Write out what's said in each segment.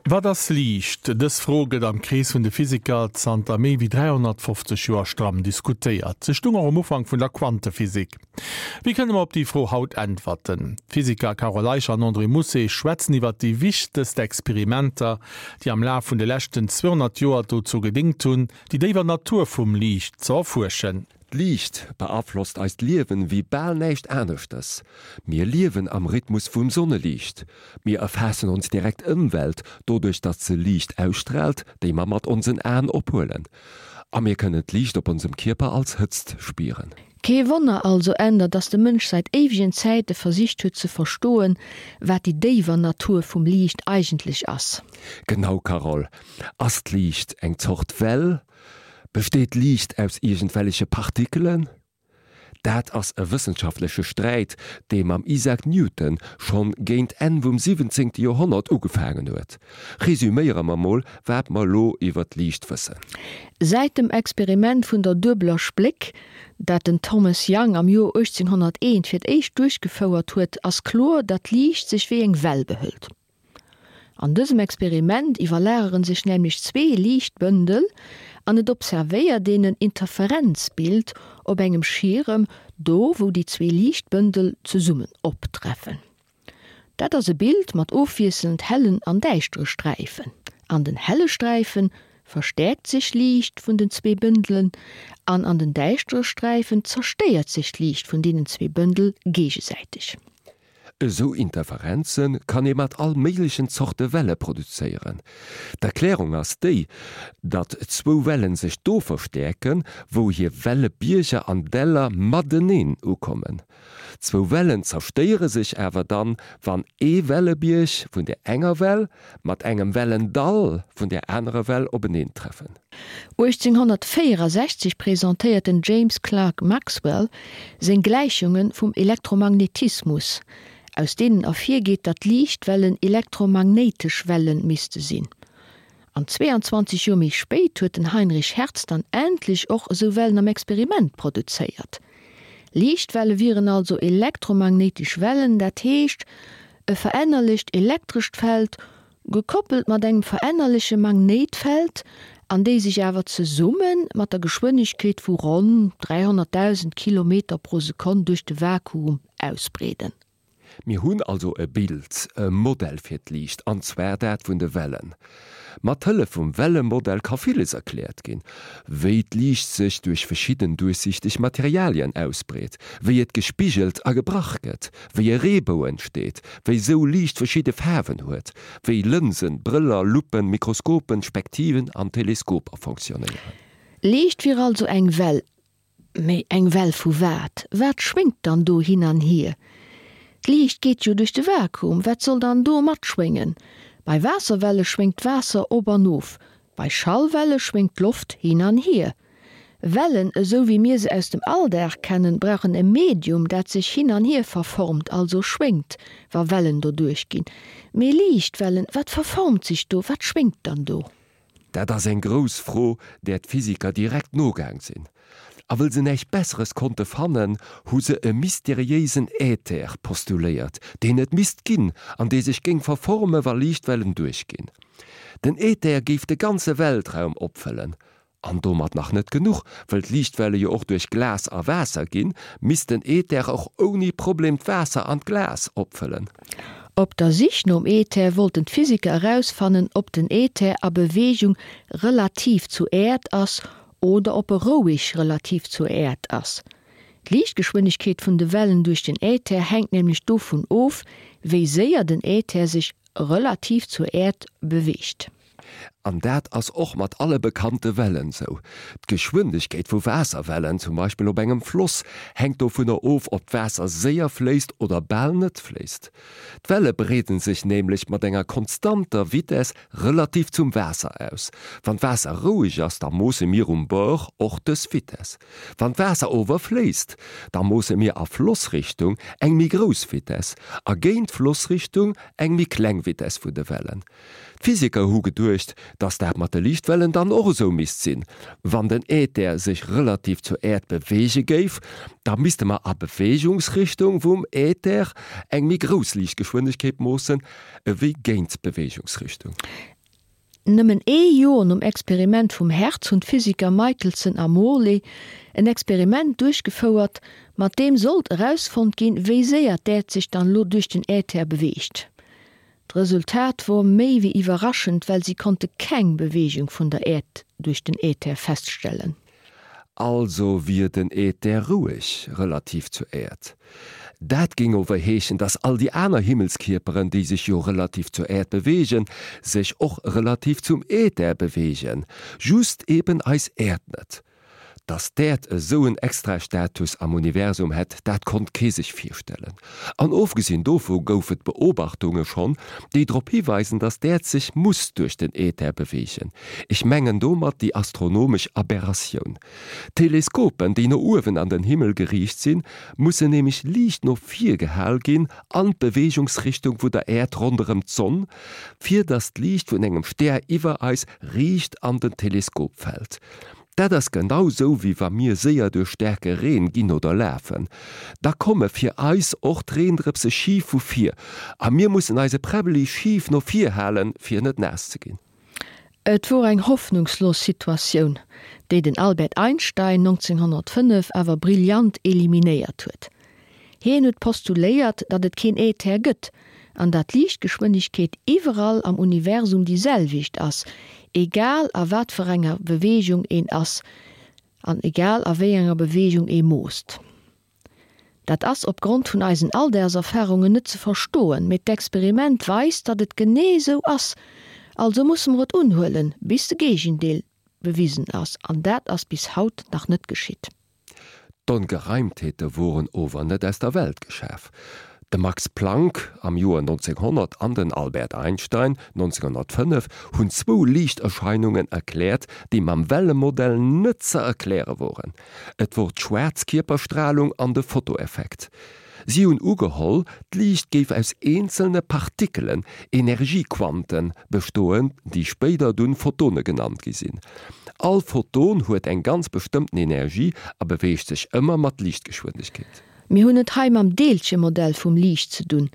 Wat ass Liicht? Dës Fro gëtt am Krees vun de Physiker zanter méi wéi 350 Joer stramm diskutéiert. Se stung och um Ufank vun der Quantephysik. Wéi kënne mer op déi Fro haut äntwerten? D'Physiker Carole Eicher an André Mousset schwätzen iwwer déi wichtegst Experimenter, déi am Laf vun de leschten 200 Joer dozou gedéngt hunn, déi déiwer Natur vum Liicht ze erfuerschen. D'Liicht beaflosst eist Liewen wéi bal näischt aneschters. Mir liewen am Rhythmus vum Sonneliicht. Mir erfaassen ons direkt Ëmwelt doduerch datt se Liicht ausstraalt, déi mer mat onsen Aen ophuelen. A mir kënnen d'Liicht op onsem Kierper als Hëtzt spieren. Kee Wonner also änder, datt de Mënsch säit éiwegen Zäite versicht huet ze verstoen, wat déi déiwer Natur vum Liicht eigentlech ass. Genau Carole, ass d'Liicht eng Zort Well? Besteet Liicht aus iergendwelleche Partikelen? Dat ass e wëssenschaftleche Sträit, dee mam Isaac Newton schonn géint Enn vum 17. Joerhonnert ugefaangen huet. Resuméiere mer mol, wat mer elo iwwer d'Liicht wëssen. Säit dem Experiment vun der duebeler Spléck, dat den Thomas Young am Joer 1801 fir d'éischt duerchgefouert huet, ass kloer, datt d'Liicht sech wéi eng Well behëlt. An dësem Experiment iwwerlageren sech nämlech zwee Liichtbëndel an et observéiert een en Interferenzbild op engem Schierem, do wou déi zwee Liichtbëndel zesummen optreffen. Dat ass e Bild mat ofwiesselnd hellen an däischtere Sträifen. An den helle Sträife verstäerkt sech Liicht vun den zwee Bëndelen an an den däischtere Sträifen zerstéiert sech d'Liicht vun deenen zwee Bëndel géigesäiteg. Esou Interferenze kann ee mat all méiglechen Zorte Welle produzéieren. D'Erklärung ass déi, datt zwou Wellen sech do verstäerken, wou hir Wellebierger an Däller mateneen ukommen. Zwou Wellen zerstéiere sech awer dann, wann ee Wellebierg vun der enger Well mat engem Wellendall vun der anerer Well openeentreffen. 1864 presentéiert den James Clerk Maxwell seng Gläichunge vum Elektromagnetismus, aus deenen ervirgeet, datt Liichtwellen elektromagnéitesch Welle misste sinn. An 22 Joer méi spéit huet den Heinrich Hertz dann endlech och esou Wellen am Experiment produzéiert. Liichtwelle wieren also elektromagnéitesch Wellen, dat heescht e verännerlecht elektrescht Feld gekoppelt mat engem verännerleche Magnéitfeld, an déi sech awer zesumme mat der Geschwënnegkeet vu ronn 300.000 Kilometer pro Sekonn duerch de Vakuum ausbreeden. Mir hunn also e Bild, e Modell fir d'Liicht, an zwar dat vun de Wellen. Mat Hëllef vum Wellemodell ka villes erkläert ginn, wéi d'Liicht sech duerch verschidden duerchsichteg Materialien ausbreet, wéi et gespigelt a gebrach gëtt, wéi e Reebou entsteet, wéi sou Liicht verschidde Faarwen huet, wéi Lënsen, Brëller, Luppen, Mikroskopen, Spektiven an Teleskoper fonctionnéieren. Liicht wier also eng Well, Mee eng Well vu wat? Wat schwéngt dann do hin an hier? D'Liicht geet jo duerch de Vakuum, wat soll dann do matschwéngen? Bei Waasserwelle schwéngt d'Waasser op an of, bei Schallwelle schwéngt d'Loft hin an hier. Wellen, esou wéi mir se aus dem Alldag kennen, brauchen e Medium, dat sech hin an hier verformt, also schwéngt, wa Wellen doduerch ginn. Mee Liichtwellen, wat verformt sech do, wat schwéngt dann do? Dat ass eng grouss Fro, där d'Physiker direkt nogaang sinn. A wëll se näischt Besseres konnte fannen, hu se e mysteriéisen Äther postuléiert, deen et misst ginn an dee sech géing verforme wa Liichtwellen duerchginn. Den Äther géif de ganze Weltraum opfëllen. An domat nach net genuch, wëll d'Liichtwelle jo och duerch Glas a Waasser ginn, misst den Äther och ouni Problem d'Waasser an d'Glas opfëllen. Op der Sich nom Äther wollten d'Physiker erausfannen, ob den Äther a Beweegung relativ zur Äerd ass oder ob e roueg relativ zur Äerd ass. D'Liichtgeschwindegkeet vun de Wellen duerch den Äther hänkt nämlech dovun of, wéi séier den Äther sech relativ zur Äerd beweegt. An dat ass och mat alle bekannte Wellen sou. D'Geschwindegkeet vu Waasserwellen, zum Beispill op engem Floss, hänkt dovunner of, ob d'Waasser séier fléisst oder bal net fléisst. D'Welle breeden sech nämlech mat enger konstanter Vitess relativ zum Waasser aus. Wann d'Waasser roueg ass, da moosse mir um Bord och dës Vitess. Wann d'Waasser ower fléisst, da moosse mir a Flossrichtung eng méi grouss Vitess a géint d'Flossrichtung eng méi kleng Vitess vun de Wellen. D'Physiker hu geduecht, dass dat mat de Liichtwellen dann och esou misst sinn. Wann den Äther sech relativ zur Äerd beweege géif, da misste mer a Beweegungsrichtung vum Äther eng méi grouss Liichtgeschwindegkeet moossen ewéi géint d'Beweegungsrichtung. Nëmmen ee Joer nom Experiment vum Hertz hunn d'Physiker Michelson a Morley en Experiment duerchgefouert, mat deem sollt erausfonnt ginn, wéi séier d'Äerd sech dann elo duerch den Äther beweegt. D'Resultat wor méi wéi iwwerraschend, well si konnte keng Beweegung vun der Äerd duerch den Äther feststellen. Also wier den Äther roueg relativ zur Äerd. Dat géing ower heeschen, dass all déi aner Himmelskierperen, déi sech jo relativ zur Äerd beweegen, sech och relativ zum Äther beweegen, just eben eis Äerd net. Dass d'Äerd esou en Extrastatus am Universum hätt, dat konnt kee sech virstellen. An ofgesinn dovu gouf et Beobachtunge schonn, déi drop hiweisen, dass d'Äerd sech muss duerch den Äther beweegen. Ech mengen domat déi astronomesch Aberratioun. Teleskopen, déi no uewen an den Himmel geriicht sinn, mussen nämlech liicht no vir gehal ginn, an d'Beweegungsrichtung vu der Äerd ronderëm d'Sonn, fir dass d'Liicht vun engem Stär iwwer eis riicht an den Teleskop fält. Dat ass genau sou wéi wa mir séier duerch staarke Reen ginn oder lafen. Da komme fir eis och d'Reendrëpse schif vu vir a mir mussen eise Präbbeli schif no vir halen, fir net naass ze ginn. Et wor eng hoffnungslos Situatioun, déi den Albert Einstein 1905 awer brillant eliminéiert huet. Hien huet postuléiert, datt et keen Äther gëtt, an datt d'Liichtgeschwënnegkeet iwwerall am Universum déi selwecht ass, egal a wat fir enger Beweegung een ass an egal a wéi enger Beweegung ee moosst. Dat ass opgrond vun eisen Alldagserfarungen net ze verstoen, mee d'Experiment weist, datt et genee esou ass, also musse mer et unhuelen, bis de Géigendeel bewisen ass, an dat ass bis haut nach net geschitt. D'Ongereimtheete woren ower net aus der Welt geschaf. De Max Planck am Joer 1900 an den Albert Einstein 1905 hunn zwou Liichterscheinungen erkläert, déi mam Wellemodell net ze erkläre woren. Et wor d'Schwaarzkierperstralung an de Fotoeffekt. Si hunn ugeholl, d'Liicht géif aus eenzelne Partikelen, Energiequanten, bestoen, déi spéider dunn Photone genannt gi sinn. All Photon huet eng ganz bestëmmten Energie a beweegt sech ëmmer mat Liichtgeschwindegkeet. Mir hunn et hei mam Deelchemodell vum Liicht ze dunn.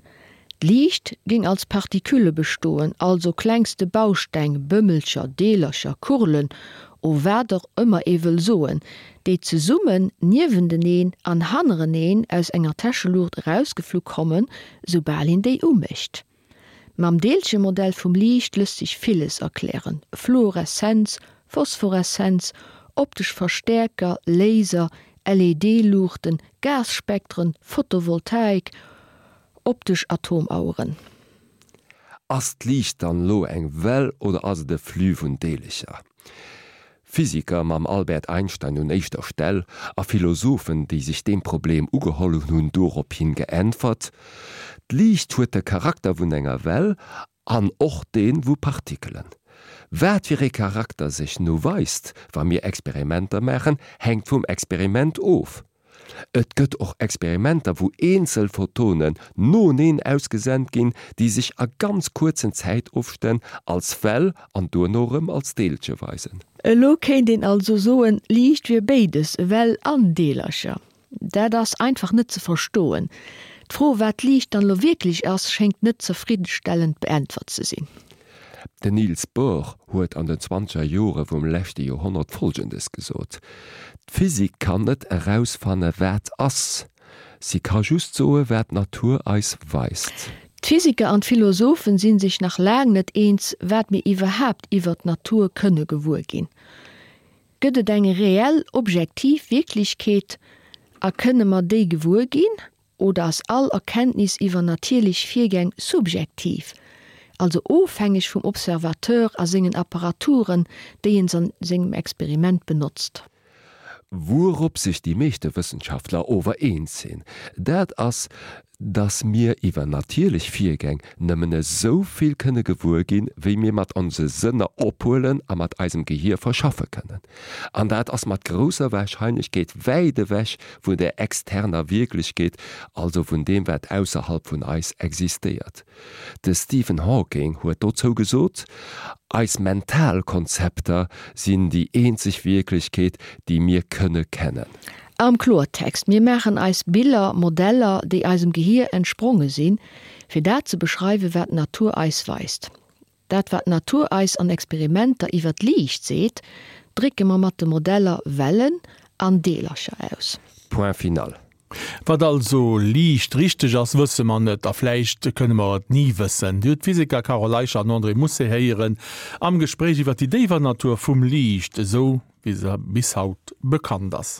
D'Liicht géing als Partikülle bestoen, also klengste Bausteng, Bëmmelcher, Deelercher, Kurlen o wat och ëmmer ee wëll soen, déi zesummen, niewenteneen an hannereneen aus enger Täscheluucht erausgeflu kommen, soubal een déi umécht. Mam Deelchemodell vum Liicht lësst sech villes erklären, Fluoreszenz, Phosphoreszenz, optesch Verstäerker, Laser, LED-Luuchten, Gasspektren, Photovoltaik, optesch Atomaueren. Ass d'Liicht dann elo eng Well oder ass et e Flux vun Deelecher? Physiker, mam Albert Einstein un éischter Stell, a Philosophen, déi sech deem Problem ugeholl hunn, hunn dorophin geäntwert, D'Liicht huet de Charakter vun enger Well an och dee vu Partikelen. Wat fir ee Charakter sech nu weist, wa mir Experimenter maachen, hänkt vum Experiment of. Et gëtt och Experimenter, wou eenzel Photonen noeneen ausgesent ginn, déi sech a ganz kuerzen Zäitofstänn als Well an duerno erëm als Deelche weisen. Elo kéint een also soen, Liicht wier béides, Well an Deelercher. Dat ass einfach net ze verstoen. D'Fro, wat Liicht dann elo wierklech ass, schéngt net zefriddenstellend beäntwert ze sinn. Den Niels Bohr huet an den zwanzeger Jore vum leschte Joerhonnert Folgendes gesot, D'Physik kann net erausfanne wat ass, si ka just soe wat d'Natur eis weist. D'Physiker an d'Philosophen si sech nach laang net eens, wat mir iwwerhaapt iwwert d'Natur kënne gewuer ginn. Gëtt et eng reell, objektiv Wierklechkeet a kënne mer déi gewuer ginn? Oder ass all Erkenntnis iwwer natierlech Virgäng subjektiv, also ofhängeg vum Observateur a sengen Apparaturen, déi en an sengem Experiment benotzt? Wourop sech déi meeschte Wëssenschaftler ower eens sinn, dat ass, dass mir iwwer natierlech Virgäng nëmmen esou vill kënne gewuer ginn, wéi mir mat onse Sënner ophuelen a mat eisem Gehier verschaffe kënnen. An dat ass mat grousser Warscheinlechkeet wäit ewech vun der externer Wierklechkeet, also vun deem wat ausserhalb vun eis existéiert. De Stephen Hawking huet dozou gesot, Eis mental Konzepter sinn déi eenzeg Wierklechkeet, déi mir kënne kennen. Am Kloertext, Mir maachen eis Biller, Modeller, déi eisem Gehier entspronge sinn, fir dat ze beschreiwen, wat d'Natur eis weist. Dat wat d'Natur eis an Experimenter iwwer d'Liicht seet, drécke mer mat de Modeller Wellen an Deelercher aus. Point final. Wat also Liicht richteg ass, wësse mer net a vläicht kënne mer et ni wëssen. Dir hutt d'Physiker Carole Eicher an André Mousset héieren am Gespréich iwwer déi déiwer Natur vum Liicht, esou wéi se bis haut bekannt ass.